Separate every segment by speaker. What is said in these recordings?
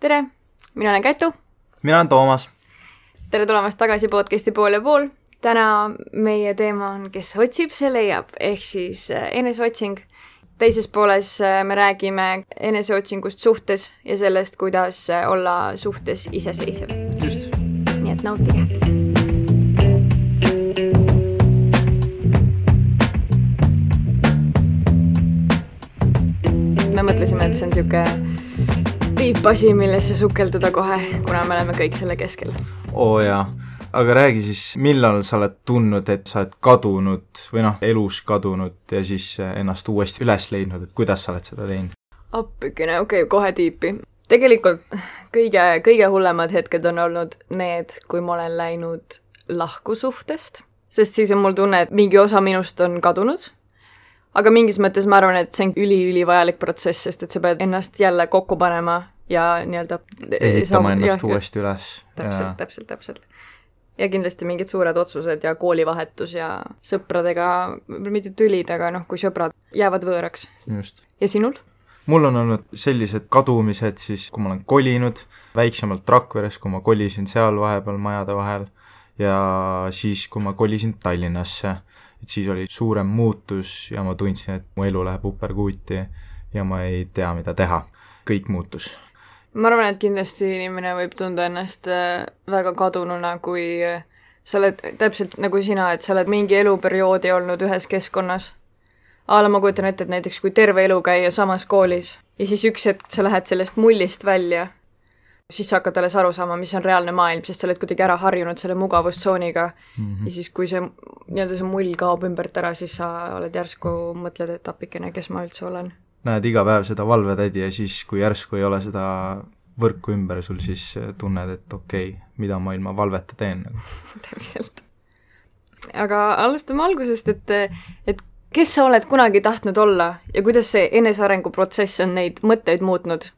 Speaker 1: Tere, mina olen Kätu.
Speaker 2: Mina olen Toomas.
Speaker 1: Tere tulemast tagasi podcasti Pool ja pool. Täna meie teema on, kes otsib, see leiab, ehk siis eneseotsing. Teises pooles me räägime eneseotsingust suhtes ja sellest, kuidas olla suhtes iseseisev.
Speaker 2: Just.
Speaker 1: Nii et nautige. Me mõtlesime, et see on siuke tiipasi, millesse sukelduda kohe, kuna me oleme kõik selle keskel.
Speaker 2: Oo jaa, aga räägi siis, millal sa oled tundnud, et sa oled kadunud või elus kadunud ja siis ennast uuesti üles leidnud, et kuidas sa oled seda teinud?
Speaker 1: Appikene, okei, kohe tiipi. Tegelikult kõige hullemad hetked on olnud need, kui ma olen läinud lahku suhtest, sest siis on mul tunne, et mingi osa minust on kadunud. Aga mingis mõttes ma arvan, et see on üli-vajalik protsess, sest et sa pead ennast jälle kokku panema ja nii-öelda
Speaker 2: ehitama ennast uuesti üles.
Speaker 1: Täpselt. Ja kindlasti mingid suured otsused ja koolivahetus ja sõpradega, mitte tülid, aga kui sõbrad jäävad võõraks.
Speaker 2: Just.
Speaker 1: Ja sinul?
Speaker 2: Mul on olnud sellised kadumised siis, kui ma olen kolinud väiksemalt Rakveres, kui ma kolisin seal vahepeal majade vahel ja siis, kui ma kolisin Tallinnasse. Et siis oli suurem muutus ja ma tundsin, et mu elu läheb uperkuuti ja ma ei tea, mida teha. Kõik muutus.
Speaker 1: Ma arvan, et kindlasti inimene võib tunda ennast väga kadununa, kui sa oled täpselt nagu sina, et sa oled mingi eluperioodi olnud ühes keskkonnas. Ma kujutan ette, et näiteks kui terve elu käia samas koolis ja siis üks hetk sa lähed sellest mullist välja, siis sa hakkad alles aru saama, mis on reaalne maailm, sest sa oled kuidagi ära harjunud selle mugavustsooniga ja siis kui see mull kaob ümbert ära, siis sa oled järsku mõtled, et appikene, kes ma üldse olen.
Speaker 2: Näed iga päev seda valvetädi ja siis, kui järsku ei ole seda võrku ümber sul, siis tunned, et okei, mida ma ilma valveta teen.
Speaker 1: Täpselt. Aga alustame algusest, et kes sa oled kunagi tahtnud olla ja kuidas see enesearengu protsess on neid mõtteid muutnud?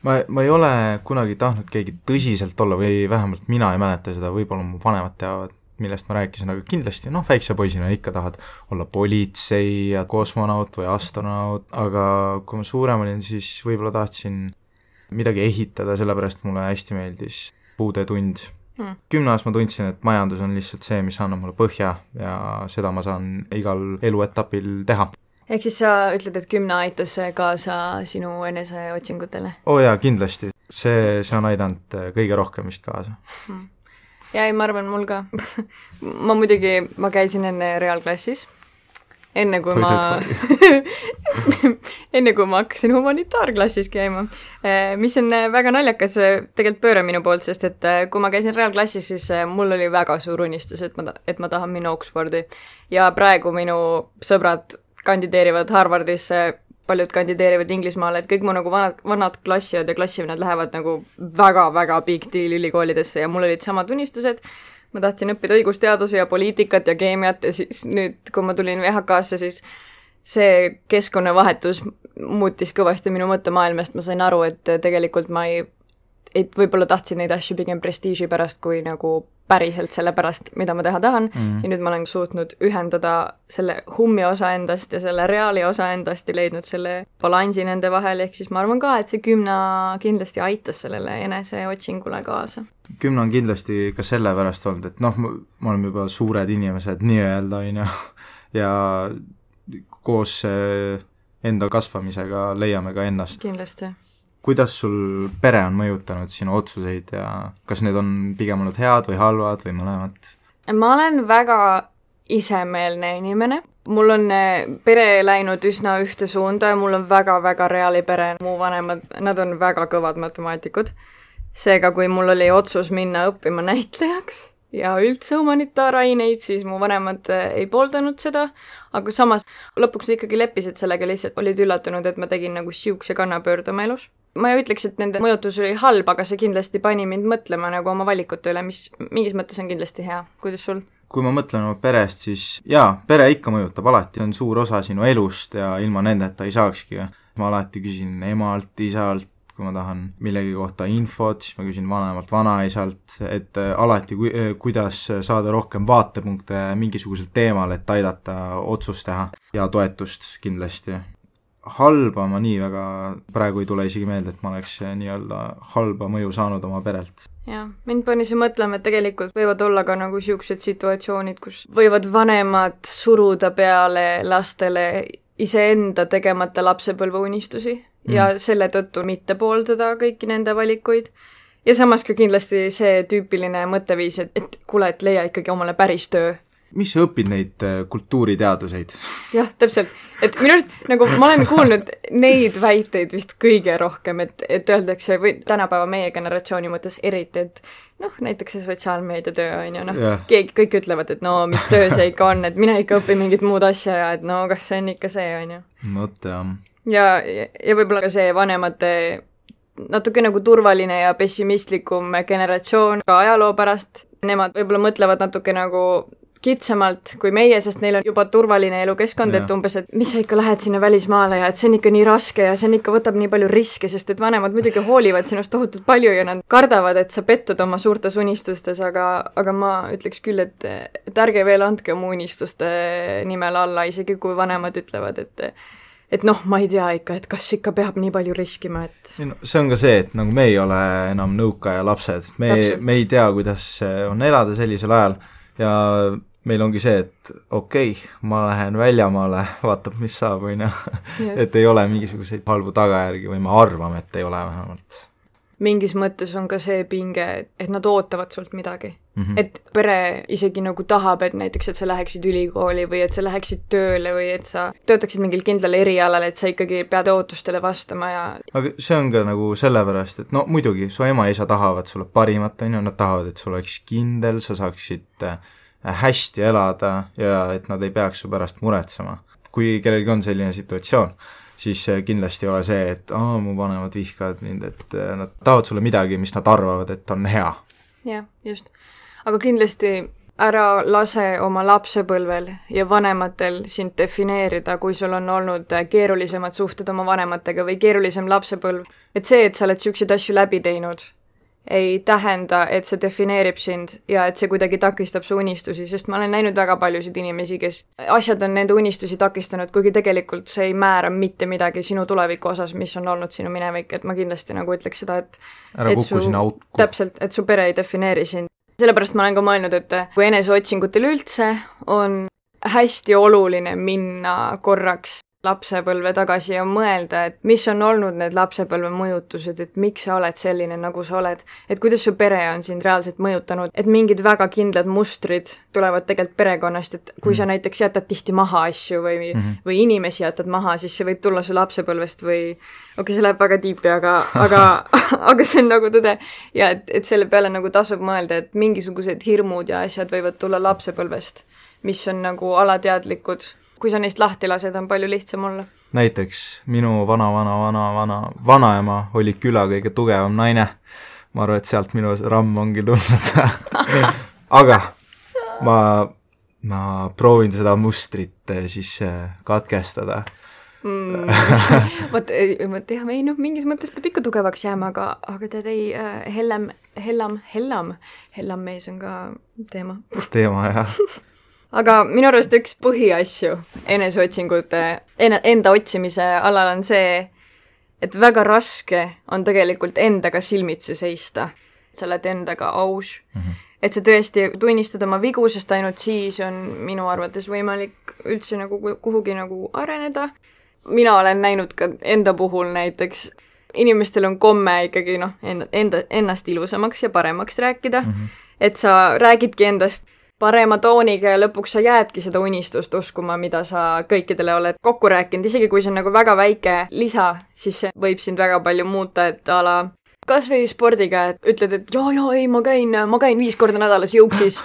Speaker 2: Ma ei ole kunagi tahtnud keegi tõsiselt olla või vähemalt mina ei mäleta seda, võib-olla mu vanemad teavad, millest ma rääkisin, aga kindlasti, väikse poisina ikka tahad olla politsei ja kosmonaut või astronaut, aga kui ma suurem olin, siis võib-olla tahtsin midagi ehitada, sellepärast mulle hästi meeldis puudetund. 10 aastas ma tundsin, et majandus on lihtsalt see, mis annab mulle põhja ja seda ma saan igal eluetapil teha.
Speaker 1: Ehk siis sa ütled, et 10 aitas kaasa sinu eneseotsingutele?
Speaker 2: Jaa, kindlasti. See on aidanud kõige rohkem vist kaasa.
Speaker 1: Ja ma arvan, mul ka. ma käisin enne reaalklassis. Enne kui ma hakkasin humanitaarklassis käima. Mis on väga naljakas tegelikult pööre minu poolt, sest et kui ma käisin reaalklassis, siis mul oli väga suur unistus, et ma tahan minna Oxfordi. Ja praegu minu sõbrad kandideerivad Harvardisse, paljud kandideerivad Inglismaale, et kõik mu vanad klassiad ja klassivennad lähevad väga-väga big deal ülikoolidesse ja mul olid samad unistused. Ma tahtsin õppida õigusteadusi ja poliitikat ja keemiat ja siis nüüd, kui ma tulin VHK-sse, siis see keskkonnavahetus muutis kõvasti minu mõttemaailmast. Ma sain aru, et tegelikult ma võib-olla tahtsin neid asju pigem prestiiži pärast kui päriselt selle pärast, mida ma teha tahan. Ja nüüd ma olen suutnud ühendada selle hummi osa endast ja selle reaali osa endast ja leidnud selle balansi nende vahel, ehk siis ma arvan ka, et see 10 kindlasti aitas sellele eneseotsingule kaasa.
Speaker 2: 10 on kindlasti ka selle pärast olnud, et me oleme juba suured inimesed nii-öelda ja koos enda kasvamisega leiame ka ennast.
Speaker 1: Kindlasti.
Speaker 2: Kuidas sul pere on mõjutanud sinu otsuseid ja kas need on pigem olnud head või halvad või mõlemad?
Speaker 1: Ma olen väga isemeelne inimene. Mul on pere läinud üsna ühte suunda ja mul on väga-väga reaali pere. Mu vanemad, nad on väga kõvad matemaatikud. Seega, kui mul oli otsus minna õppima näitlejaks ja üldse humanitaaraineid, siis mu vanemad ei pooldanud seda, aga samas lõpuks ikkagi leppisid sellega, lihtsalt olid üllatunud, et ma tegin siukse kannapöörde oma elus. Ma ei ütleks, et nende mõjutus oli halb, aga see kindlasti pani mind mõtlema oma valikute üle, mis mingis mõttes on kindlasti hea. Kuidas sul?
Speaker 2: Kui ma mõtlen oma perest, siis pere ikka mõjutab alati, on suur osa sinu elust ja ilma nendeta ei saakski. Ma alati küsin emalt, isalt, kui ma tahan millegi kohta infot, siis ma küsin vanemalt, vanaisalt, et alati kuidas saada rohkem vaatepunkte mingisugusel teemal, et aidata otsust teha ja toetust kindlasti. halba ma nii väga praegu ei tule isegi meelde, et ma oleks nii-öelda halba mõju saanud oma perelt.
Speaker 1: jah, mind pani see mõtlema, et tegelikult võivad olla ka nagu niisugused situatsioonid, kus võivad vanemad suruda peale lastele iseenda tegemata lapsepõlveunistusi ja selle tõttu mitte pooldada kõiki nende valikuid. Ja samas ka kindlasti see tüüpiline mõtteviis, et kuule, et leia ikkagi omale päris töö.
Speaker 2: Mis sa õpid neid kultuuriteaduseid?
Speaker 1: Jah, täpselt. Et minu arust, nagu ma olen kuulnud neid väiteid vist kõige rohkem, et öeldakse, või tänapäeva meie generatsiooni mõttes eriti, et näiteks see sotsiaalmeedia töö on ju, kõik ütlevad, et mis töö see ikka on, et mine ikka õpi mingit muud asja ja et kas see on ikka see, on ju. Ja võib-olla ka see vanemate natuke nagu turvaline ja pessimistlikum generatsioon ka ajaloo pärast. Nemad võib-olla mõtlevad natuke nagu kitsamalt kui meie, sest neil on juba turvaline elukeskkond, et umbes, et mis sa ikka lähed sinna välismaale ja et see on ikka nii raske ja see on ikka võtab nii palju riske, sest et vanemad muidugi hoolivad sinust tohutult palju ja nad kardavad, et sa pettud oma suurtes unistustes, aga ma ütleks küll, et ärge veel andke oma unistuste nimel alla, isegi kui vanemad ütlevad, et ma ei tea ikka, et kas ikka peab nii palju riskima, et...
Speaker 2: See on ka see, et nagu me ei ole enam nõukaaja lapsed. Me ei tea, kuidas on elada sellisel ajal ja meil ongi see, et okei, ma lähen väljamaale, vaatab, mis saab, või et ei ole mingisuguseid halbu tagajärgi või ma arvan, et ei ole vähemalt.
Speaker 1: Mingis mõttes on ka see pinge, et nad ootavad sult midagi. Et pere isegi nagu tahab, et näiteks, et sa läheksid ülikooli või et sa läheksid tööle või et sa töötaksid mingil kindlal erialal, et sa ikkagi pead ootustele vastama ja...
Speaker 2: Aga see on ka nagu sellepärast, et muidugi, su ema ja isa tahavad sulle parimat, nad tahavad, et sul oleks kindel, sa saaksid hästi elada ja et nad ei peaks su pärast muretsema. Kui kellelgi on selline situatsioon, siis kindlasti ei ole see, et mu vanemad vihkavad mind, et nad tahavad sulle midagi, mis nad arvavad, et on hea.
Speaker 1: Jah, just. Aga kindlasti ära lase oma lapsepõlvel ja vanematel sind defineerida, kui sul on olnud keerulisemad suhted oma vanematega või keerulisem lapsepõlv. Et see, et sa oled siukseid asju läbi teinud, ei tähenda, et see defineerib sind ja et see kuidagi takistab su unistusi, sest ma olen näinud väga paljusid inimesi, kes asjad on nende unistusi takistanud, kuigi tegelikult see ei määra mitte midagi sinu tuleviku osas, mis on olnud sinu minevik, et ma kindlasti nagu ütleks seda, et
Speaker 2: ära kuku sinna autku.
Speaker 1: Täpselt, et su pere ei defineeri sind. Sellepärast ma olen ka mõelnud, et kui eneseotsingutel üldse on hästi oluline minna korraks lapsepõlve tagasi ja mõelda, et mis on olnud need lapsepõlve mõjutused, et miks sa oled selline, nagu sa oled, et kuidas su pere on sind reaalselt mõjutanud, et mingid väga kindlad mustrid tulevad tegelikult perekonnast, et kui sa näiteks jätad tihti maha asju või inimesi jätad maha, siis see võib tulla su lapsepõlvest või see läheb väga tiipi, aga see on nagu tõde ja et selle peale nagu tasub mõelda, et mingisugused hirmud ja asjad võivad tulla lapsepõlvest, mis on nagu alateadlikud. Kui sa neist lahti lased, on palju lihtsam olla.
Speaker 2: Näiteks minu vanaema oli küla kõige tugevam naine. Ma arvan, et sealt minu ramm ongi tulnud. Aga ma proovin seda mustrit siis katkestada.
Speaker 1: Mingis mõttes peab ikka tugevaks jääma, aga tead ei, hellam mees on ka teema.
Speaker 2: Teema, jah.
Speaker 1: Aga minu arust üks põhiasju eneseotsingute, enda otsimise alal on see, et väga raske on tegelikult endaga silmitsi seista. Sa oled endaga aus. Et sa tõesti tunnistad oma vigu, sest ainult siis on minu arvates võimalik üldse nagu kuhugi nagu areneda. Mina olen näinud ka enda puhul näiteks, inimestel on komme ikkagi ennast ilusamaks ja paremaks rääkida, et sa räägidki endast parema tooniga ja lõpuks sa jäädki seda unistust uskuma, mida sa kõikidele oled kokku rääkinud. Isegi kui see on nagu väga väike lisa, siis see võib sind väga palju muuta, et ala kas või spordiga, et ütled, et ei, ma käin 5 korda nädalas jõuksis,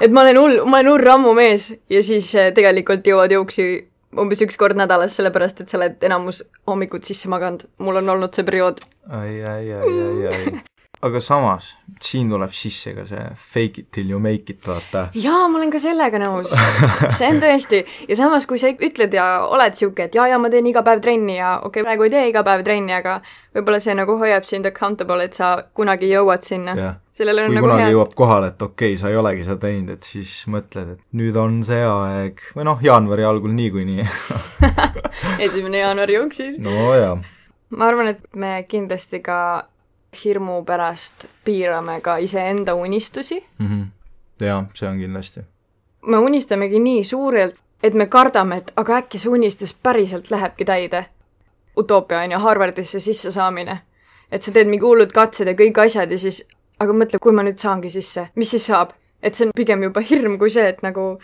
Speaker 1: et ma olen hull rammu mees ja siis tegelikult jõuad jõuksi umbes 1 kord nädalas, sellepärast, et sa oled enamus hommikut sisse maganud. Mul on olnud see periood.
Speaker 2: Ai. aga samas, siin tuleb sisse ka see fake it till you make it, vaata.
Speaker 1: Jaa, ma olen ka sellega nõus. See on tõesti. Ja samas, kui sa ütled ja oled siuke, et jaa, ma teen iga päev trenni ja praegu ei tee iga päev trenni, aga võib-olla see nagu hoiab sind accountable, et sa kunagi jõuad sinna.
Speaker 2: Kui nagu kunagi jõuab kohale, et okei, sa ei olegi seda teinud, et siis mõtled, et nüüd on see aeg. Või jaanuari algul niikuinii.
Speaker 1: 1. jaanuari jooksis.
Speaker 2: No jaa.
Speaker 1: Ma arvan, et me kindlasti ka hirmu pärast piirame ka iseenda unistusi.
Speaker 2: Jaa, see on kindlasti.
Speaker 1: Me unistamegi nii suurelt, et me kardame, et aga äkki see unistus päriselt lähebki täide. Utoopia on ja Harvardisse sisse saamine. Et sa teed mingi hullud katsed ja kõik asjad ja siis, aga mõtle, kui ma nüüd saangi sisse, mis siis saab? Et see on pigem juba hirm kui see, et nagu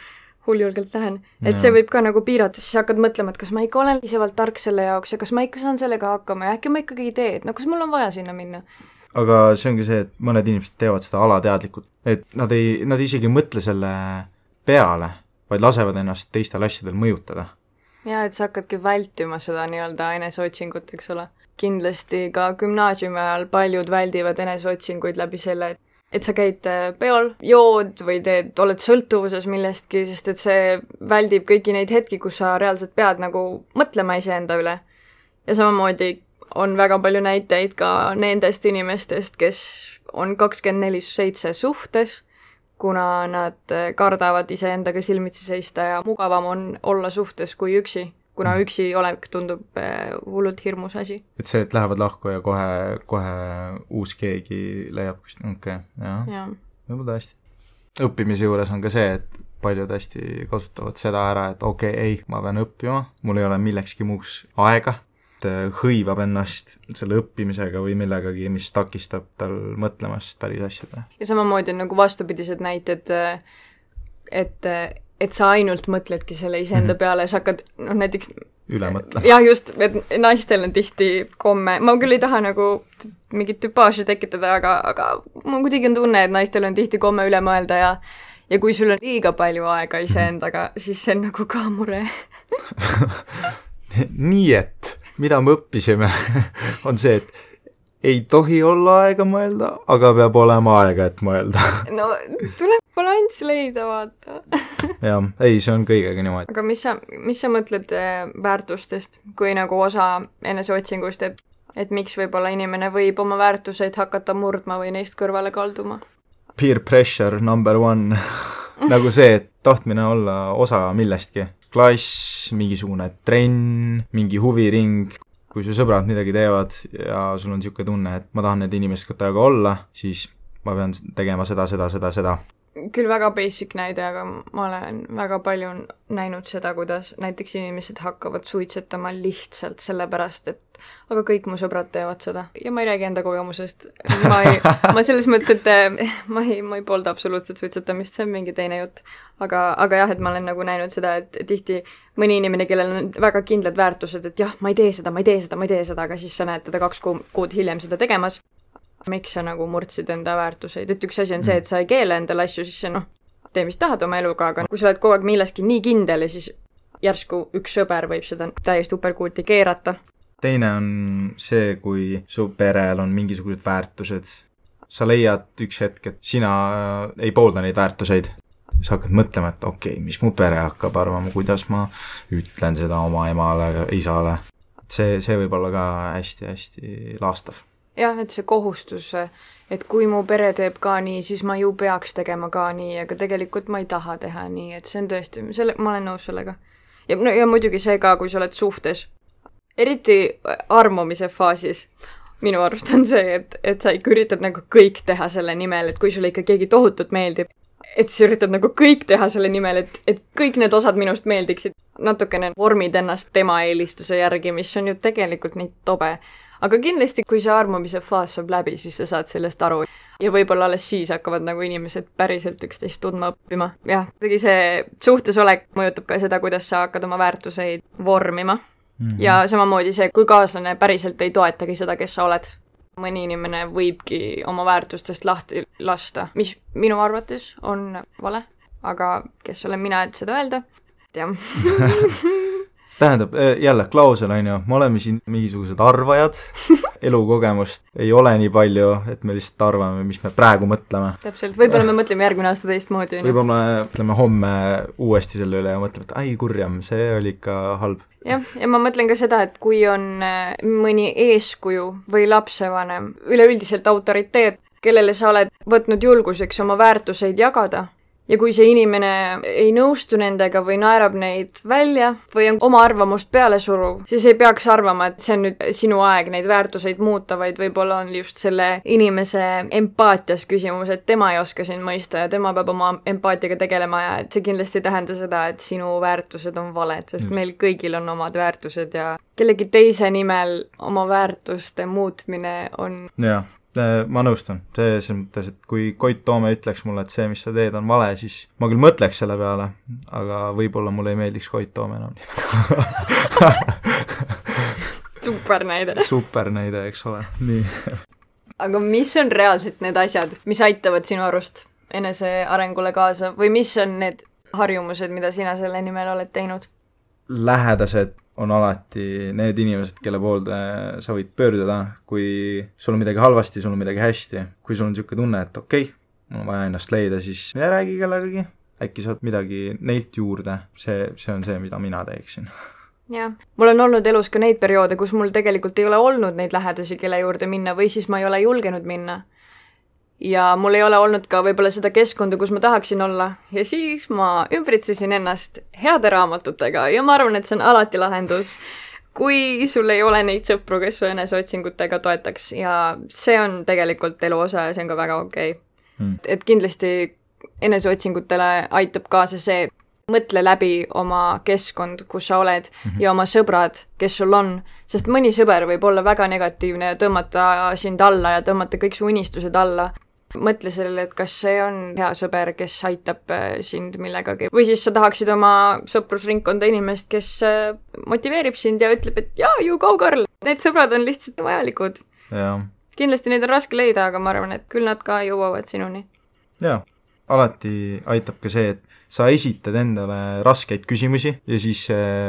Speaker 1: hulljulgelt lähen. Et see võib ka nagu piirata, siis hakkad mõtlema, et kas ma ikka olen piisavalt tark selle jaoks ja kas ma ikka saan sellega hakkama ja äkki ma ikkagi ei tee, et kas mul on vaja sinna minna.
Speaker 2: Aga see ongi see, et mõned inimesed teevad seda alateadlikult, et nad isegi mõtle selle peale, vaid lasevad ennast teistel asjadel mõjutada.
Speaker 1: Ja, et sa hakkadki vältima seda nii-öelda eneseotsingut, eks ole. Kindlasti ka gümnaasiumi ajal paljud väldivad eneseotsinguid läbi selle, et sa käid peol, jood või oled sõltuvuses millestki, sest et see väldib kõiki neid hetki, kus sa reaalselt pead nagu mõtlema iseenda üle. Ja samamoodi on väga palju näiteid ka nendest inimestest, kes on 24/7 suhtes, kuna nad kardavad iseendaga silmitsi seista ja mugavam on olla suhtes kui üksi, kuna üksi olek tundub hullult hirmus asi.
Speaker 2: Et see, et lähevad lahku ja kohe uus keegi leiab, jah. Võib-olla tõesti. Õppimise juures on ka see, et paljud hästi kasutavad seda ära, et ei, ma pean õppima, mul ei ole millekski muuks aega, hõivab ennast selle õppimisega või millegagi, mis takistab tal mõtlemast päris asjadele.
Speaker 1: Ja samamoodi on nagu vastupidised näited, et sa ainult mõtledki selle iseenda peale ja sa hakkad, näiteks
Speaker 2: üle mõtlema.
Speaker 1: Jah, just, et naistel on tihti komme, ma küll ei taha nagu mingit tüpaaži tekitada, aga mul kuidagi on tunne, et naistel on tihti komme üle mõelda ja kui sul on liiga palju aega iseendaga, siis see on nagu ka mure.
Speaker 2: Nii et mida me õppisime, on see, et ei tohi olla aega mõelda, aga peab olema aega, et mõelda.
Speaker 1: No, tuleb balanss leida, vaata.
Speaker 2: Jah, ei, see on kõigega niimoodi.
Speaker 1: Aga mis sa mõtled väärtustest, kui nagu osa eneseotsingust, et miks võib-olla inimene võib oma väärtuseid hakata murdma või neist kõrvale kalduma?
Speaker 2: Peer pressure number 1. Nagu see, et tahtmine olla osa millestki. Klass, mingisugune trenn, mingi huviring, kui su sõbrad midagi teevad ja sul on niisugune tunne, et ma tahan need inimestega olla, siis ma pean tegema seda. Küll
Speaker 1: väga basic näide, aga ma olen väga palju näinud seda, kuidas näiteks inimesed hakkavad suitsetama lihtsalt sellepärast, et aga kõik mu sõbrad teevad seda. Ja ma ei räägi enda kogemusest. Ma selles mõttes, et ma ei poolda absoluutselt suitsetamist, see on mingi teine jutt. Aga jah, et ma olen nagu näinud seda, et tihti mõni inimene, kellel on väga kindlad väärtused, et jah, ma ei tee seda, aga siis sa näed teda 2 kuud hiljem seda tegemas. Miks sa nagu murdsid enda väärtuseid, et üks asi on see, et sa ei keele endale asju, siis see tee mis tahad oma eluga, aga kui sa oled kogu aeg milleski nii kindel ja siis järsku üks sõber võib seda täiesti uperkuuti keerata.
Speaker 2: Teine on see, kui su perel on mingisugused väärtused. Sa leiad üks hetk, et sina ei poolda neid väärtuseid. Sa hakkad mõtlema, et mis mu pere hakkab arvama, kuidas ma ütlen seda oma emale, isale. See võib olla ka hästi-hästi laastav.
Speaker 1: Jah, et see kohustus, et kui mu pere teeb ka nii, siis ma ju peaks tegema ka nii, aga tegelikult ma ei taha teha nii, et see on tõesti, ma olen nõus sellega. Ja muidugi see ka, kui sa oled suhtes. Eriti armumise faasis minu arust on see, et sa ikka üritad nagu kõik teha selle nimel, et kui sulle ikka keegi tohutult meeldib, et sa üritad nagu kõik teha selle nimel, et kõik need osad minust meeldiksid. Natukene vormid ennast tema eelistuse järgi, mis on ju tegelikult nii tobe. Aga kindlasti, kui see armumise faas saab läbi, siis sa saad sellest aru. Ja võib-olla alles siis hakkavad nagu inimesed päriselt üksteist tundma õppima. Jah, tegi see suhtesolek mõjutab ka seda, kuidas sa hakkad oma väärtuseid vormima. Ja samamoodi see, kui kaaslane päriselt ei toetagi seda, kes sa oled. Mõni inimene võibki oma väärtustest lahti lasta, mis minu arvates on vale. Aga kes olen mina, et seda öelda? Tean.
Speaker 2: tähendab, jälle, klausel on ju, me oleme siin mingisugused arvajad, elukogemust ei ole nii palju, et me lihtsalt arvame, mis me praegu mõtleme.
Speaker 1: Täpselt, võib-olla me mõtleme järgmine aasta teistmoodi.
Speaker 2: Võib-olla me mõtleme homme uuesti selle üle ja mõtleme, et ai kurjam, see oli ikka halb.
Speaker 1: Ja ma mõtlen ka seda, et kui on mõni eeskuju või lapsevanem, üleüldiselt autoriteet, kellele sa oled võtnud julguseks oma väärtuseid jagada, ja kui see inimene ei nõustu nendega või naerab neid välja või on oma arvamust peale suruv, siis ei peaks arvama, et see on nüüd sinu aeg neid väärtuseid muuta, vaid võib-olla on just selle inimese empaatias küsimus, et tema ei oska sind mõista ja tema peab oma empaatiaga tegelema ja et see kindlasti ei tähenda seda, et sinu väärtused on valed, sest meil kõigil on omad väärtused ja kellegi teise nimel oma väärtuste muutmine on...
Speaker 2: Jaa. Ma nõustun, selles mõttes, et kui Koit Toome ütleks mulle, et see, mis sa teed, on vale, siis ma küll mõtleks selle peale, aga võib-olla mulle ei meeldiks Koit Toome enam.
Speaker 1: Super näide.
Speaker 2: Super näide, eks ole. Nii.
Speaker 1: Aga mis on reaalselt need asjad, mis aitavad sinu arust enese arengule kaasa või mis on need harjumused, mida sina selle nimel oled teinud?
Speaker 2: Lähedased on alati need inimesed, kelle poolde sa võid pöörduda, kui sul on midagi halvasti, sul on midagi hästi. Kui sul on niisugune tunne, et okei, mul on vaja ennast leida, siis räägi kellegagi. Äkki saad midagi neilt juurde. See on see, mida mina teeksin.
Speaker 1: Jah, mul on olnud elus ka neid perioode, kus mul tegelikult ei ole olnud neid lähedasi, kelle juurde minna või siis ma ei ole julgenud minna. Ja mul ei ole olnud ka võib-olla seda keskkonda, kus ma tahaksin olla. Ja siis ma ümbritsesin ennast heade raamatutega ja ma arvan, et see on alati lahendus, kui sul ei ole neid sõpru, kes su eneseotsingutega toetaks. Ja see on tegelikult elu osa ja see on ka väga okei. Et kindlasti eneseotsingutele aitab kaasa see, mõtle läbi oma keskkond, kus sa oled ja oma sõbrad, kes sul on. Sest mõni sõber võib olla väga negatiivne ja tõmmata sind alla ja tõmmata kõik su unistused alla. Mõtle sellele, et kas see on hea sõber, kes aitab sind millegagi. Või siis sa tahaksid oma sõprusringkonda inimest, kes motiveerib sind ja ütleb, et jaa, you go girl. Need sõbrad on lihtsalt vajalikud.
Speaker 2: Ja.
Speaker 1: Kindlasti neid on raske leida, aga ma arvan, et küll nad ka jõuavad sinuni.
Speaker 2: Jaa, alati aitab ka see, et sa esitad endale raskeid küsimusi ja siis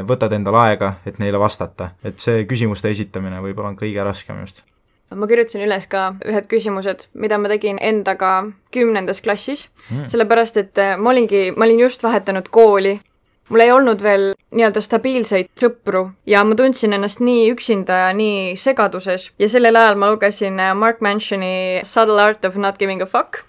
Speaker 2: võtad endale aega, et neile vastata. Et see küsimuste esitamine võib-olla on kõige raskem just.
Speaker 1: Ma kirjutasin üles ka ühed küsimused, mida ma tegin endaga 10. klassis, sellepärast, et ma olin just vahetanud kooli. Mul ei olnud veel nii-öelda stabiilseid sõpru ja ma tundsin ennast nii üksinda ja nii segaduses. Ja sellel ajal ma lugesin Mark Mansioni Subtle Art of Not Giving a Fuck,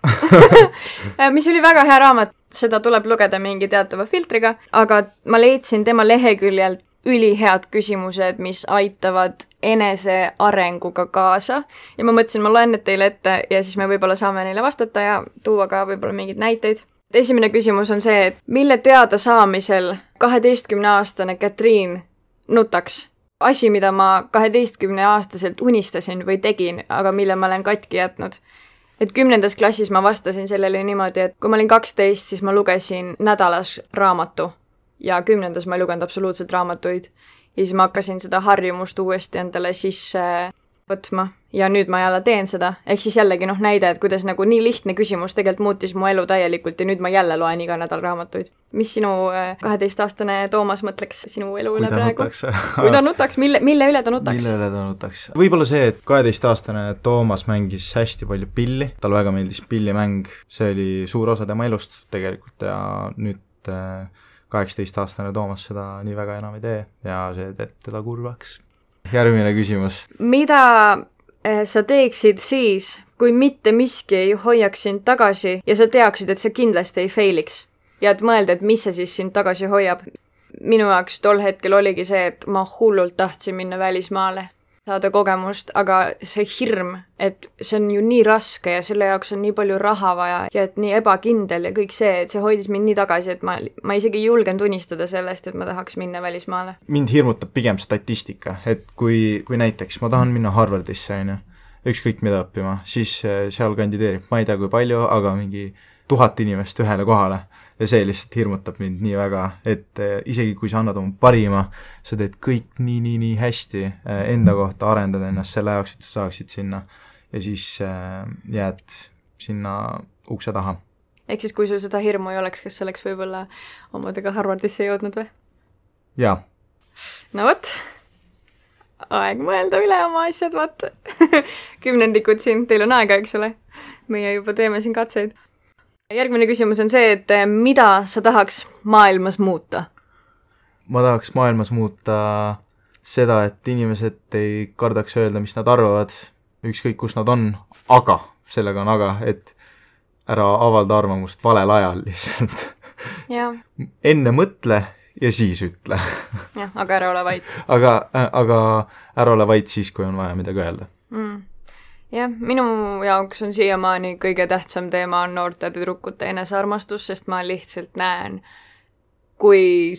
Speaker 1: mis oli väga hea raamat. Seda tuleb lugeda mingi teatava filtriga, aga ma leidsin tema leheküljelt ülihead küsimused, mis aitavad enese arenguga kaasa. Ja ma mõtlesin, ma loen need teile ette ja siis me võib-olla saame neile vastata ja tuua ka võib-olla mingeid näiteid. Esimene küsimus on see, et mille teada saamisel 12-aastane Katriin nutaks? Asi, mida ma 12-aastaselt unistasin või tegin, aga mille ma olen katki jätnud. Et 10. klassis ma vastasin sellele niimoodi, et kui ma olin 12, siis ma lugesin nädalas raamatu. Ja 10. ma ei lugenud absoluutselt raamatuid. Ja siis ma hakkasin seda harjumust uuesti endale sisse võtma. Ja nüüd ma jälle teen seda. Ehk siis jällegi näide, et kuidas nagu nii lihtne küsimus tegelikult muutis mu elu täielikult ja nüüd ma jälle loen iga nädal raamatuid. Mis sinu 12-aastane Toomas mõtleks sinu elu üle praegu? Kui ta nutaks, mille üle ta nutaks?
Speaker 2: Mille üle ta nutaks? Võib-olla see, et 12-aastane Toomas mängis hästi palju pilli. Tal väga meeldis pillimäng. See oli suur osa tema elust tegelikult ja nüüd 18-aastane Toomas seda nii väga enam ei tee ja see teeb teda kurvaks. Järgmine küsimus.
Speaker 1: Mida sa teeksid siis, kui mitte miski ei hoiaks sind tagasi ja sa teaksid, et sa kindlasti ei failiks? Ja et mõelda, et mis see siis sind tagasi hoiab? Minu jaoks tol hetkel oligi see, et ma hullult tahtsin minna välismaale, saada kogemust, aga see hirm, et see on ju nii raske ja selle jaoks on nii palju raha vaja ja et nii ebakindel ja kõik see, et see hoidis mind nii tagasi, et ma isegi ei julgenud unistada sellest, et ma tahaks minna välismaale.
Speaker 2: Mind hirmutab pigem statistika, et kui näiteks ma tahan minna Harvardisse, ükskõik mida õppima, siis seal kandideerib, ma ei tea kui palju, aga mingi 1000 inimest ühele kohale. Ja see lihtsalt hirmutab mind nii väga, et isegi kui sa annad oma parima, sa teed kõik nii hästi enda kohta, arendad ennast selle jaoks, et sa saaksid sinna ja siis jääd sinna ukse taha.
Speaker 1: Ehk siis, kui sul seda hirmu ei oleks, kas sa oleks võib-olla omadega Harvardisse jõudnud või?
Speaker 2: Jaa,
Speaker 1: no vot, aeg mõelda üle oma asjad, vaata. 10 siin, teil on aega, eks ole? Meie juba teeme siin katseid. Järgmine küsimus on see, et mida sa tahaks maailmas muuta?
Speaker 2: Ma tahaks maailmas muuta seda, et inimesed ei kardaks öelda, mis nad arvavad, ükskõik kus nad on, aga, sellega on aga, et ära avalda arvamust valel ajal lihtsalt.
Speaker 1: Ja.
Speaker 2: Enne mõtle ja siis ütle.
Speaker 1: Jah, aga ära ole vait.
Speaker 2: aga ära ole vait siis, kui on vaja midagi öelda.
Speaker 1: Jah, minu jaoks on siiamaani kõige tähtsam teema on noorte tüdrukute enesearmastus, sest ma lihtsalt näen, kui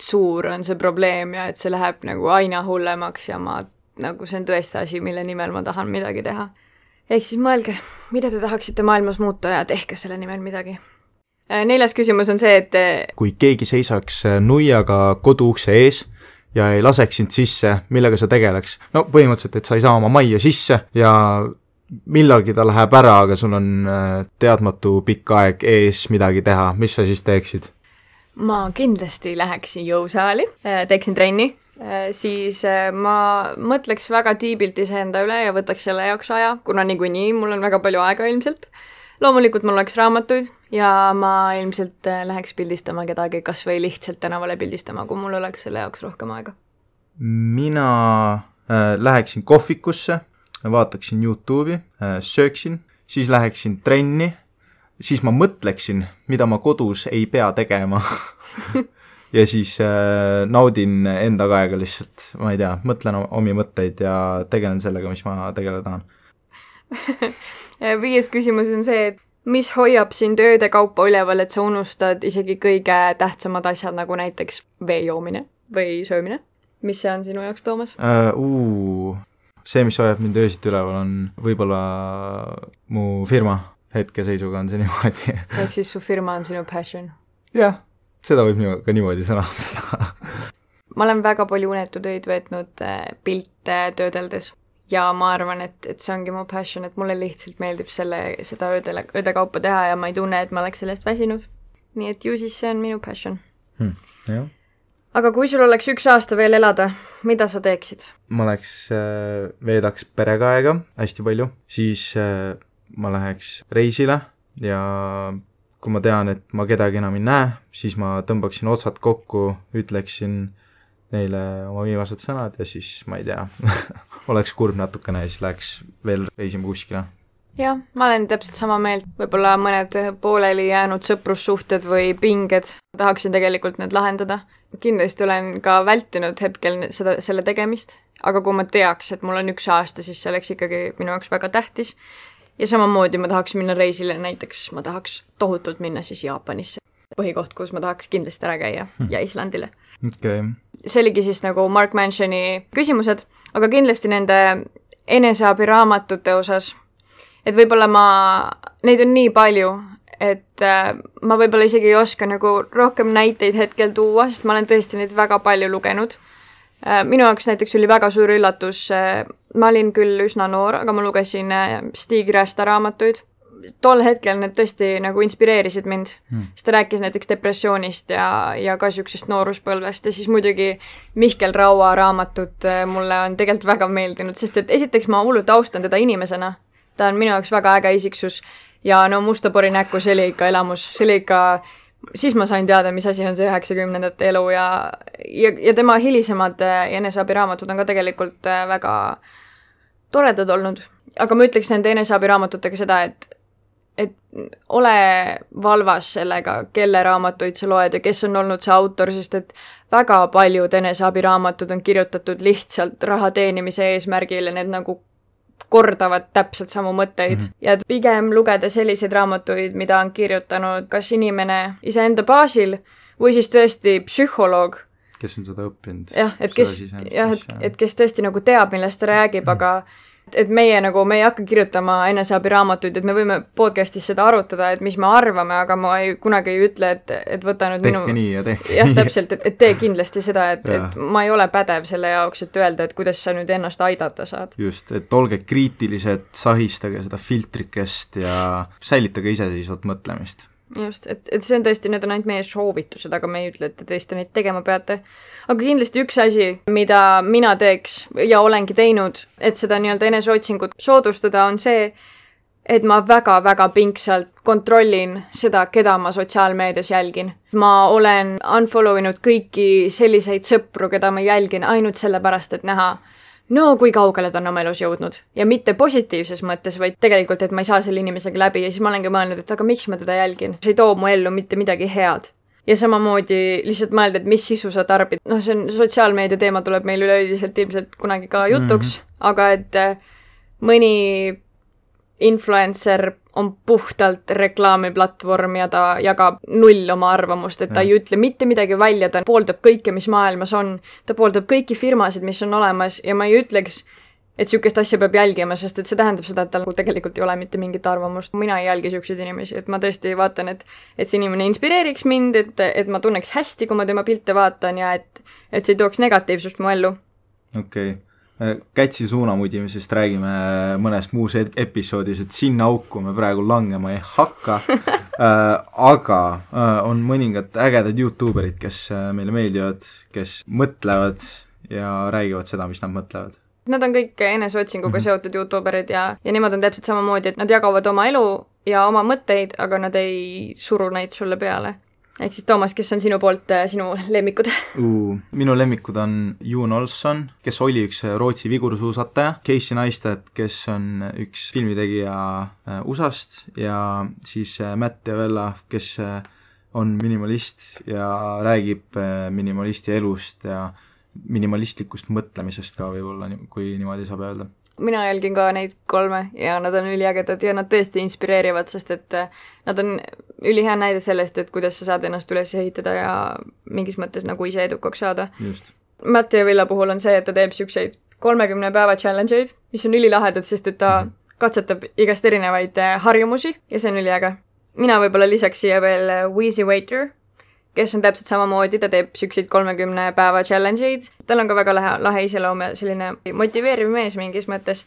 Speaker 1: suur on see probleem ja et see läheb nagu aina hullemaks ja nagu see on tõesti asi, mille nimel ma tahan midagi teha. Ehk siis mõelge, mida te tahaksite maailmas muuta ja tehke selle nimel midagi. 4. küsimus on see, et
Speaker 2: kui keegi seisaks nuiaga koduukse ees ja ei laseks sind sisse, millega sa tegeleks? No põhimõtteliselt, et sa ei saa oma majja sisse ja millalgi ta läheb ära, aga sul on teadmatu pikk aeg ees midagi teha. Mis sa siis teeksid?
Speaker 1: Ma kindlasti läheksin jõusaali, teeksin trenni, siis ma mõtleks väga tiibilt iseenda üle ja võtaks selle jaoks aja, kuna niikuinii mul on väga palju aega ilmselt. Loomulikult mul oleks raamatuid ja ma ilmselt läheks pildistama kedagi, kas või lihtsalt tänavale pildistama, kui mul oleks selle jaoks rohkem aega.
Speaker 2: Mina läheksin kohvikusse, vaataksin YouTube'i, sööksin, siis läheksin trenni, siis ma mõtleksin, mida ma kodus ei pea tegema ja siis naudin enda aega lihtsalt, ma ei tea, mõtlen omi mõtteid ja tegelen sellega, mis ma tegeleda tahan.
Speaker 1: 5. küsimus on see, et mis hoiab sind ööde kaupa üleval, et sa unustad isegi kõige tähtsamad asjad, nagu näiteks vee joomine või söömine? Mis see on sinu jaoks, Toomas?
Speaker 2: See, mis hoiab mind öösiti üleval, on võib-olla mu firma. Hetkeseisuga on see niimoodi.
Speaker 1: Ehk siis su firma on sinu passion?
Speaker 2: Jah, seda võib ka niimoodi sõnastada.
Speaker 1: Ma olen väga palju unetutöid veetnud pilte töödeldes. Ja ma arvan, et see ongi mu passion, et mulle lihtsalt meeldib seda ööde kaupa teha ja ma ei tunne, et ma oleks sellest väsinud. Nii et ju siis see on minu passion.
Speaker 2: Jah.
Speaker 1: Aga kui sul oleks 1 aasta veel elada, mida sa teeksid?
Speaker 2: Ma veedaks perega aega hästi palju, siis ma läheks reisile ja kui ma tean, et ma kedagi enam ei näe, siis ma tõmbaksin otsad kokku, ütleksin neile oma viimased sõnad ja siis, ma ei tea, oleks kurb natukene ja siis läheks veel reisima kuskile.
Speaker 1: Jah, ma olen täpselt sama meelt. Võib-olla mõned pooleli jäänud sõprussuhted või pinged. Tahaksin tegelikult need lahendada. Kindlasti olen ka vältinud hetkel selle tegemist, aga kui ma teaks, et mul on 1 aasta, siis see oleks ikkagi minu jaoks väga tähtis. Ja samamoodi ma tahaks minna reisile, näiteks ma tahaks tohutult minna siis Jaapanisse. Põhikoht, kus ma tahaks kindlasti ära käia ja Islandile.
Speaker 2: Okay.
Speaker 1: See oligi siis nagu Mark Mansioni küsimused, aga kindlasti nende eneseabiraamatute osas, et võib-olla neid on nii palju, et ma võib-olla isegi ei oska nagu rohkem näiteid hetkel tuua, sest ma olen tõesti neid väga palju lugenud. Minu jaoks näiteks oli väga suur üllatus, ma olin küll üsna noor, aga ma lugesin Stig Rästa raamatuid. Tol hetkel need tõesti nagu inspireerisid mind, sest ta rääkis näiteks depressioonist ja ka süksest nooruspõlvest ja siis muidugi Mihkel Raua raamatut mulle on tegelikult väga meeldinud, sest et esiteks ma hullult austan teda inimesena, ta on minu jaoks väga äge isiksus ja no Mustapori näkku, see oli ikka elamus, see oli ikka, siis ma sain teada, mis asi on see 90ndate elu ja tema hilisemad eneseabiraamatud on ka tegelikult väga toredad olnud, aga ma ütleks nende eneseabiraamatutega seda, et ole valvas sellega, kelle raamatuid sa loed ja kes on olnud see autor, sest et väga paljud eneseabiraamatud on kirjutatud lihtsalt raha teenimise eesmärgil ja need nagu kordavad täpselt samu mõtteid. Ja pigem lugeda selliseid raamatuid, mida on kirjutanud kas inimene iseenda baasil või siis tõesti psühholoog.
Speaker 2: Kes on seda õppinud.
Speaker 1: Jah, et kes tõesti nagu teab, millest ta räägib, aga et meie ei hakka kirjutama eneseabiraamatuid, et me võime podcastis seda arutada, et mis me arvame, aga ma kunagi ei ütle, et võta nüüd
Speaker 2: tehke nii ja tehke
Speaker 1: nii. Täpselt, et tee kindlasti seda, et ma ei ole pädev selle jaoks, et öelda, et kuidas sa nüüd ennast aidata saad.
Speaker 2: Just, et olge kriitilised, sahistage seda filtrikest ja säilitage iseseisvat mõtlemist.
Speaker 1: just, et see on tõesti, need on ainult meie soovitused, aga me ei ütle, et te tõesti neid tegema peate. Aga kindlasti üks asi, mida mina teeks ja olengi teinud, et seda nii-öelda eneseotsingut soodustada, on see, et ma väga-väga pingsalt kontrollin seda, keda ma sotsiaalmeedias jälgin. Ma olen unfollow inud kõiki selliseid sõpru, keda ma jälgin ainult sellepärast, et näha, no kui kaugele ta on oma elus jõudnud. Ja mitte positiivses mõttes, vaid tegelikult, et ma ei saa selle inimesega läbi ja siis ma olengi mõelnud, et aga miks ma teda jälgin? See ei too mu ellu mitte midagi head. Ja samamoodi lihtsalt mõelda, et mis sisu sa tarbid. No see on sotsiaalmeedia teema tuleb meil üleüldiselt ilmselt kunagi ka jutuks, aga et mõni influencer on puhtalt reklaamiplatvorm ja ta jagab null oma arvamust, et ta ei ütle mitte midagi välja, ta pooldab kõike, mis maailmas on, ta pooldab kõiki firmasid, mis on olemas ja ma ei ütleks, et sükest asja peab jälgima, sest et see tähendab seda, et tal tegelikult ei ole mitte mingit arvamust. Mina ei jälgi sükseid inimesi, et ma tõesti vaatan, et see inimene inspireeriks mind, et ma tunneks hästi, kui ma tema pilte vaatan ja et see ei tooks negatiivsust mu ellu.
Speaker 2: Okei. Kätsi suunamudimisest räägime mõnest muus episoodis, et sinna auku me praegu langema ei hakka, aga on mõningad ägedad YouTuberid, kes meile meeldivad, kes mõtlevad ja räägivad seda, mis nad mõtlevad.
Speaker 1: Nad on kõik eneseotsinguga seotud YouTuberid ja nemad on täpselt samamoodi, et nad jagavad oma elu ja oma mõtteid, aga nad ei suru neid sulle peale. Ehk siis Toomas, kes on sinu poolt sinu lemmikud?
Speaker 2: Minu lemmikud on Jon Olsson, kes oli üks Rootsi vigursuusataja, Casey Neistat, kes on üks filmitegija USAst ja siis Matt Javella, kes on minimalist ja räägib minimalisti elust ja minimalistlikust mõtlemisest ka võib-olla, kui niimoodi saab öelda. Mina
Speaker 1: jälgin ka neid 3 ja nad on üliägedad ja nad tõesti inspireerivad, sest et nad on ülihea näide sellest, et kuidas sa saad ennast üles ehitada ja mingis mõttes nagu ise edukaks saada.
Speaker 2: Just.
Speaker 1: Matti ja Villa puhul on see, et ta teeb siukseid 30 päeva challenge'eid, mis on ülilahedad, sest et ta katsetab igast erinevaid harjumusi ja see on üliäge. Mina võib-olla lisaks siia veel Wheezy Waiter, kes on täpselt samamoodi, ta teeb siukseid 30 päeva challenge'id. Tal on ka väga lahe iseloom ja selline motiveeriv mees mingis mõttes.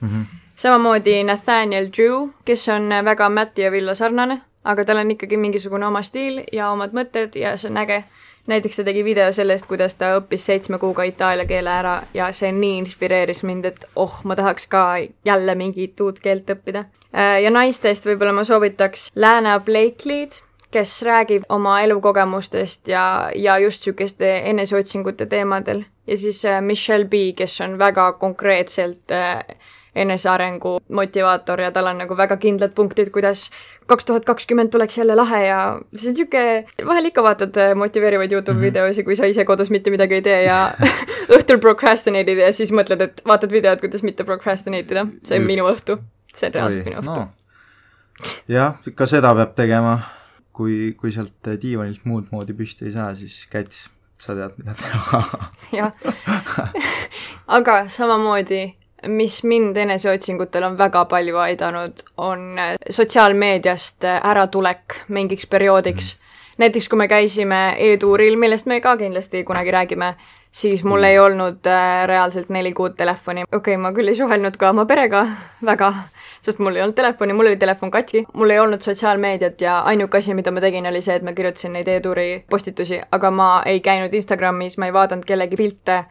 Speaker 1: Samamoodi Nathaniel Drew, kes on väga Matti ja Villa sarnane, aga tal on ikkagi mingisugune oma stiil ja omad mõtted ja see on äge. Näiteks ta tegi video sellest, kuidas ta õppis 7 kuuga itaalia keele ära ja see nii inspireeris mind, et ma tahaks ka jälle mingit uut keelt õppida. Ja naistest võib-olla ma soovitaks Lana Blakely'd, kes räägib oma elukogemustest ja just sükeste eneseotsingute teemadel. Ja siis Michelle B, kes on väga konkreetselt enesearengu motivaator ja tal on nagu väga kindlad punktid, kuidas 2020 tuleks jälle lahe ja see on siuke, vahel ikka vaatad motiveerivaid YouTube videosi, kui sa ise kodus mitte midagi ei tee ja õhtul procrastinate'id ja siis mõtled, et vaatad videod, kuidas mitte procrastinate'ida. See on minu õhtu. See on reaalselt minu õhtu. No.
Speaker 2: Jah, ka seda peab tegema. Kui sealt diivanilt muud moodi püsti ei saa, siis Käts, sa tead, mida teha.
Speaker 1: Jah. Aga samamoodi, mis mind eneseotsingutel on väga palju aidanud, on sotsiaalmeediast äratulek mingiks perioodiks. Näiteks, kui me käisime e-tuuril, millest me ka kindlasti kunagi räägime, siis mul ei olnud reaalselt 4 kuud telefoni. Okei, ma küll ei suhelnud ka oma perega väga, sest mul ei olnud telefoni, mul oli telefon katki. Mul ei olnud sotsiaalmeediat ja ainuke asi, mida ma tegin, oli see, et ma kirjutasin neid e-tuuri postitusi, aga ma ei käinud Instagramis, ma ei vaadanud kellegi pilte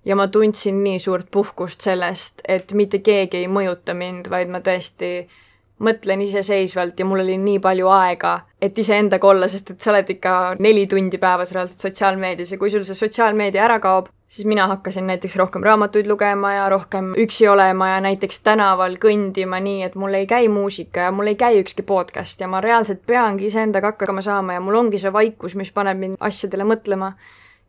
Speaker 1: ja ma tundsin nii suurt puhkust sellest, et mitte keegi ei mõjuta mind, vaid ma tõesti mõtlen iseseisvalt ja mul oli nii palju aega, et iseendaga olla, sest et sa oled ikka 4 tundi päevas reaalselt sotsiaalmeedias ja kui sul see sotsiaalmeedia ära kaob, siis mina hakkasin näiteks rohkem raamatuid lugema ja rohkem üksi olema ja näiteks tänaval kõndima nii, et mul ei käi muusika ja mul ei käi ükski podcast ja ma reaalselt peangi iseendaga hakkama saama ja mul ongi see vaikus, mis paneb mind asjadele mõtlema.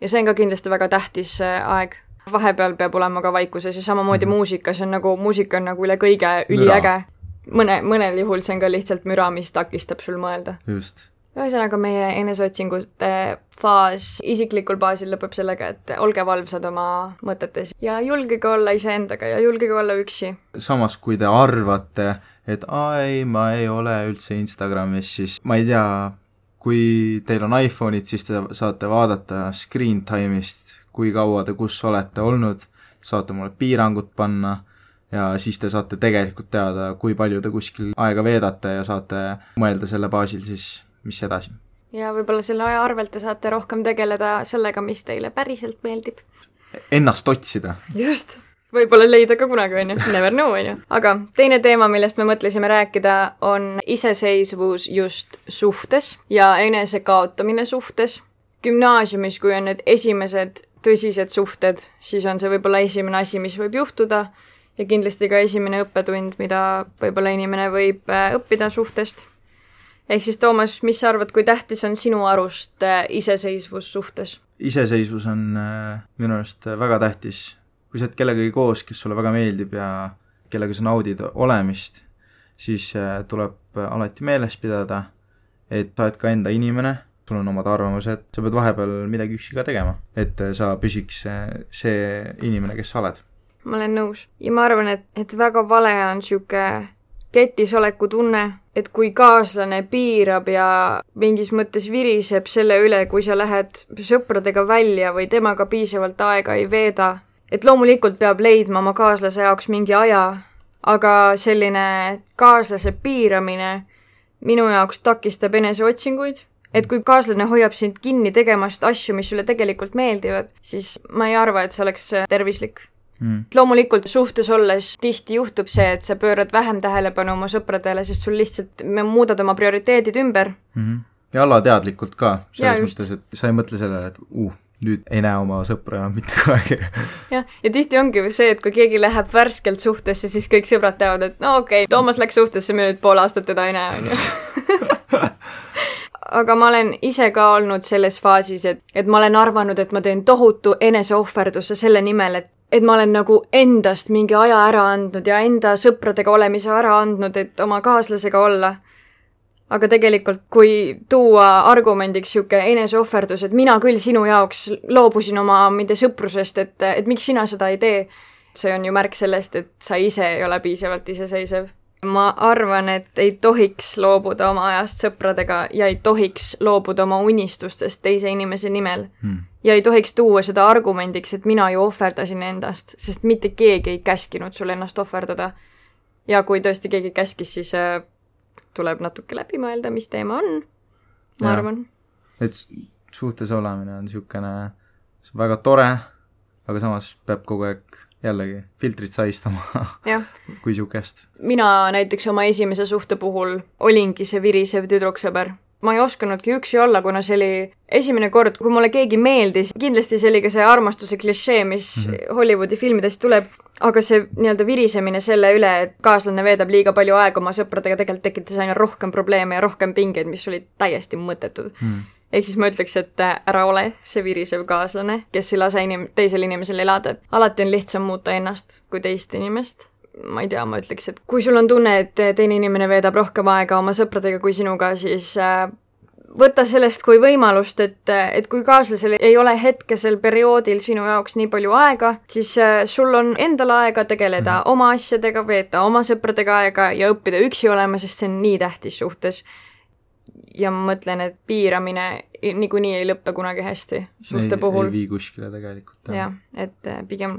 Speaker 1: Ja see on ka kindlasti väga tähtis aeg. Vahepeal peab olema ka vaikuses ja samamoodi muusika, see on nagu, muusika on nagu üle kõige üliäge. Mõnel juhul see on ka lihtsalt müra, mis takistab sul mõelda.
Speaker 2: Just.
Speaker 1: Ühesõnaga meie eneseotsingute faas isiklikul baasil lõpeb sellega, et olge valvsad oma mõtetes ja julgege olla iseendaga ja julgege olla üksi.
Speaker 2: Samas, kui te arvate, et ma ei ole üldse Instagramis, siis ma ei tea, kui teil on iPhone'id, siis te saate vaadata screen time'ist, kui kaua te kus olete olnud, saate mulle piirangud panna ja siis te saate tegelikult teada, kui palju te kuskil aega veedate ja saate mõelda selle baasil siis mis edasi.
Speaker 1: Ja võib-olla selle aja arvelt te saate rohkem tegeleda sellega, mis teile päriselt meeldib.
Speaker 2: Ennast otsida.
Speaker 1: Just. Võib-olla leida ka kunagi, on ju. Never know, on ju. Aga teine teema, millest me mõtlesime rääkida, on iseseisvus just suhtes ja enesekaotamine suhtes. Gümnaasiumis, kui on need esimesed tõsised suhted, siis on see võib-olla esimene asi, mis võib juhtuda ja kindlasti ka esimene õppetund, mida võib-olla inimene võib õppida suhtest. Ehk siis, Toomas, mis sa arvad, kui tähtis on sinu arust iseseisvus suhtes?
Speaker 2: Iseseisvus on minu arust väga tähtis. Kui sa oled kellegagi koos, kes sulle väga meeldib ja kellega sa naudid olemist, siis tuleb alati meeles pidada, et sa oled ka enda inimene, sul on omad arvamused, sa pead vahepeal midagi üksi ka tegema, et sa püsiks see inimene, kes sa oled.
Speaker 1: Ma olen nõus. Ja ma arvan, et väga vale on siuke ketisoleku tunne, et kui kaaslane piirab ja mingis mõttes viriseb selle üle, kui sa lähed sõpradega välja või temaga piisavalt aega ei veeda, et loomulikult peab leidma oma kaaslase jaoks mingi aja, aga selline kaaslase piiramine minu jaoks takistab eneseotsinguid. Et kui kaaslane hoiab sind kinni tegemast asju, mis sulle tegelikult meeldivad, siis ma ei arva, et see oleks tervislik. Loomulikult suhtes olles tihti juhtub see, et sa pöörad vähem tähelepanu oma sõpradele, sest sul lihtsalt muudad oma prioriteedid ümber.
Speaker 2: Ja alateadlikult ka, selles mõttes, et sa ei mõtle sellele, et nüüd ei näe oma sõpra enam mitte kunagi.
Speaker 1: Ja tihti ongi see, et kui keegi läheb värskelt suhtesse, siis kõik sõbrad teavad, et no okei, Toomas läks suhtesse, me nüüd pool aastat teda ei näe, on ju. Aga ma olen ise ka olnud selles faasis, et ma olen arvanud, et ma teen tohutu eneseohverduse selle nimel, et ma olen nagu endast mingi aja ära andnud ja enda sõpradega olemise ära andnud, et oma kaaslasega olla. Aga tegelikult, kui tuua argumendiks siuke eneseohverdus, et mina küll sinu jaoks loobusin oma mindi sõprusest, et miks sina seda ei tee, see on ju märk sellest, et sa ise ei ole piisavalt iseseisev. Ma arvan, et ei tohiks loobuda oma ajast sõpradega ja ei tohiks loobuda oma unistustest teise inimese nimel. Ja ei tohiks tuua seda argumendiks, et mina ju ohverdasin endast, sest mitte keegi ei käskinud sul ennast ohverdada. Ja kui tõesti keegi käskis, siis tuleb natuke läbi mõelda, mis teema on, ma arvan.
Speaker 2: Et suhtes olemine on siukene väga tore, aga samas peab kogu aeg jällegi filtrit saistama kui siukest.
Speaker 1: Mina näiteks oma esimese suhte puhul olingi see virisev tüdruksõber. Ma ei oskanudki üksi olla, kuna see oli esimene kord, kui mulle keegi meeldis. Kindlasti see oli ka see armastuse klišee, mis Hollywoodi filmidest tuleb, aga see nii-öelda virisemine selle üle, et kaaslane veedab liiga palju aega oma sõpradega, tegelikult tekitas aina rohkem probleeme ja rohkem pingeid, mis olid täiesti mõttetud. Ehk siis ma ütleks, et ära ole see virisev kaaslane, kes ei lase teisel inimesel elada. Alati on lihtsam muuta ennast kui teist inimest. Ma ei tea, ma ütleks, et kui sul on tunne, et teine inimene veedab rohkem aega oma sõpradega kui sinuga, siis võta sellest kui võimalust, et kui kaaslasel ei ole hetkesel perioodil sinu jaoks nii palju aega, siis sul on endal aega tegeleda oma asjadega, veeta oma sõpradega aega ja õppida üksi olema, sest see on nii tähtis suhtes. Ja ma mõtlen, et piiramine niikuinii ei lõppe kunagi hästi suhte puhul.
Speaker 2: Ei vii kuskile tegelikult.
Speaker 1: Ja, et pigem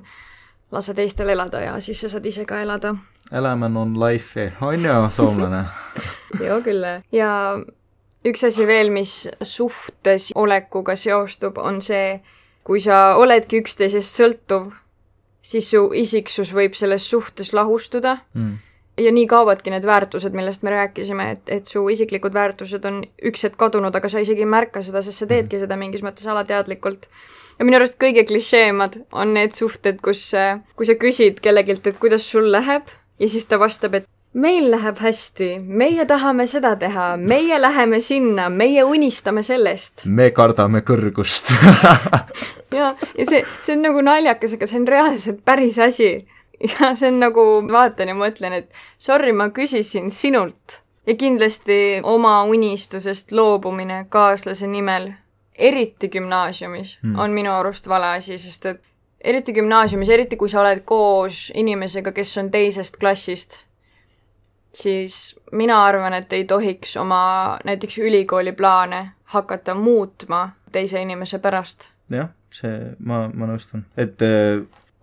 Speaker 1: lase teistel elada ja siis sa saad ise ka elada.
Speaker 2: Elämän on life, on ju soomlane?
Speaker 1: Joo, kyllä. Ja üks asi veel, mis suhtes olekuga seostub, on see, kui sa oledki üksteisest sõltuv, siis su isiksus võib selles suhtes lahustuda. Ja nii kaovadki need väärtused, millest me rääkisime, et su isiklikud väärtused on üks hetk kadunud, aga sa isegi ei märka seda, sest sa teedki seda mingis mõttes alateadlikult. Ja minu arust kõige klišeemad on need suhted, kui sa küsid kellegilt, et kuidas sul läheb ja siis ta vastab, et meil läheb hästi, meie tahame seda teha, meie läheme sinna, meie unistame sellest.
Speaker 2: Me kardame kõrgust.
Speaker 1: ja see on nagu naljakas, aga see on reaalselt päris asi. Ja see on nagu, vaatan ja mõtlen, et sorry, ma küsisin sinult. Ja kindlasti oma unistusest loobumine kaaslase nimel, eriti gümnaasiumis, on minu arust vale asi, sest et eriti gümnaasiumis, eriti kui sa oled koos inimesega, kes on teisest klassist, siis mina arvan, et ei tohiks oma näiteks ülikooli plaane hakata muutma teise inimese pärast.
Speaker 2: Jah, ma nõustun. Et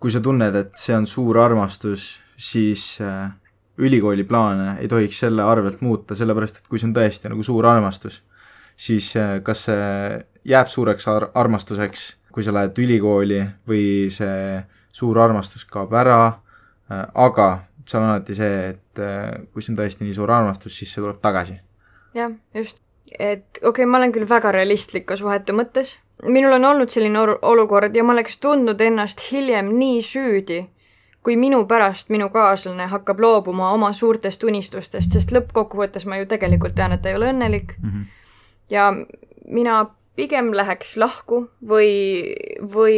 Speaker 2: kui sa tunned, et see on suur armastus, siis ülikooli plaane ei tohiks selle arvelt muuta, sellepärast, et kui see on tõesti nagu suur armastus, siis kas see jääb suureks armastuseks, kui sa lähed ülikooli või see suur armastus kaob ära, aga seal on alati see, et kui see on tõesti nii suur armastus, siis see tuleb tagasi.
Speaker 1: Jah, just. Et okei, ma olen küll väga realistlik ka suhete mõttes. Minul on olnud selline olukord ja ma oleks tundnud ennast hiljem nii süüdi, kui minu pärast minu kaaslane hakkab loobuma oma suurtest unistustest, sest lõppkokkuvõttes ma ju tegelikult tean, et ta ei ole õnnelik. Ja mina pigem läheks lahku või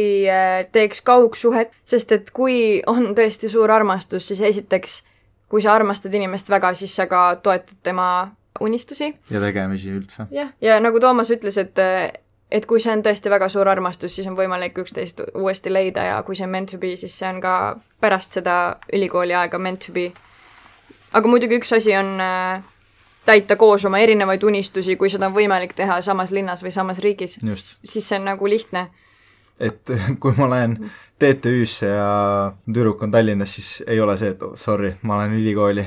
Speaker 1: teeks kaugsuhet, sest et kui on tõesti suur armastus, siis esiteks, kui sa armastad inimest väga, siis sa ka toetad tema unistusi.
Speaker 2: Ja tegemisi üldse.
Speaker 1: Ja nagu Toomas ütles, et kui see on tõesti väga suur armastus, siis on võimalik üksteist uuesti leida ja kui see on meant to be, siis see on ka pärast seda ülikooli aega meant to be. Aga muidugi üks asi on täita koos oma erinevaid unistusi, kui seda on võimalik teha samas linnas või samas riigis, siis see on nagu lihtne.
Speaker 2: Et kui ma lähen TTÜ-sse ja tüdruk on Tallinnas, siis ei ole see, et sorry, ma olen ülikooli.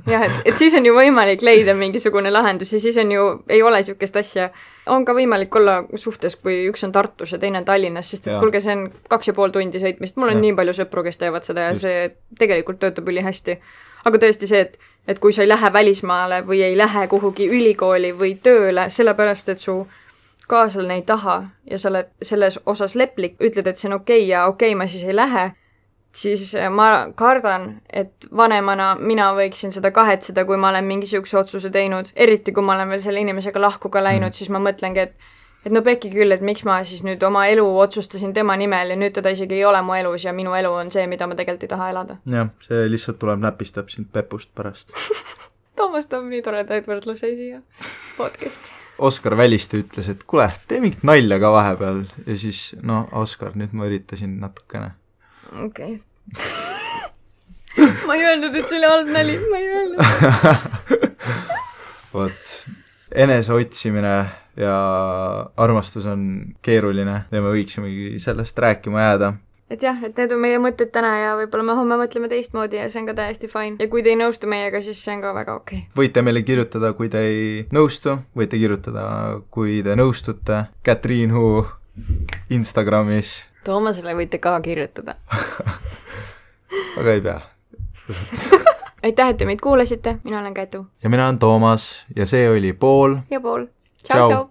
Speaker 1: Jah, et siis on ju võimalik leida mingisugune lahendus ja siis on ju, ei ole sükest asja. On ka võimalik olla suhtes, kui üks on Tartus ja teine on Tallinnas, sest et kulge, see on 2,5 tundi sõitmist. Mul on nii palju sõpru, kes teevad seda ja see tegelikult töötab üli hästi. Aga tõesti see, et kui sa ei lähe välismaale või ei lähe kuhugi ülikooli või tööle, sellepärast, et su kaaslane ei taha ja sa oled selles osas leplik, ütled, et see on okei ja okei, ma siis ei lähe, siis ma kardan, et vanemana mina võiksin seda kahetseda, kui ma olen mingisuguse otsuse teinud, eriti kui ma olen veel selle inimesega lahku ka läinud, siis ma mõtlengi, et no pekki küll, et miks ma siis nüüd oma elu otsustasin tema nimel ja nüüd teda isegi ei ole mu elus ja minu elu on see, mida ma tegelikult ei taha elada.
Speaker 2: Jah, see lihtsalt tuleb näpistab sind pepust pärast.
Speaker 1: Toomas toob nii toredaid võrdlusi siia podcasti.
Speaker 2: Oskar Väliste ütles, et kuule, tee mingit nalja ka vahepeal ja siis, no Oskar, nüüd ma üritasin natukene.
Speaker 1: Okei. Ma ei öelnud, et see oli halb nali, ma ei öelnud.
Speaker 2: Vot, enese otsimine ja armastus on keeruline ja me võiksimegi sellest rääkima jääda.
Speaker 1: Et jah, et need on meie mõtted täna ja võib-olla me homme mõtleme teistmoodi ja see on ka täiesti fine. Ja kui te ei nõustu meiega, siis see on ka väga okei.
Speaker 2: Võite meile kirjutada, kui te ei nõustu, võite kirjutada, kui te nõustute. Katriin Huu Instagramis.
Speaker 1: Toomasele võite ka kirjutada.
Speaker 2: Aga ei pea.
Speaker 1: Aitäh, et te meid kuulasite. Mina olen Kätu.
Speaker 2: Ja mina olen Toomas ja see oli Pool.
Speaker 1: Ja Pool. Ciao, ciao.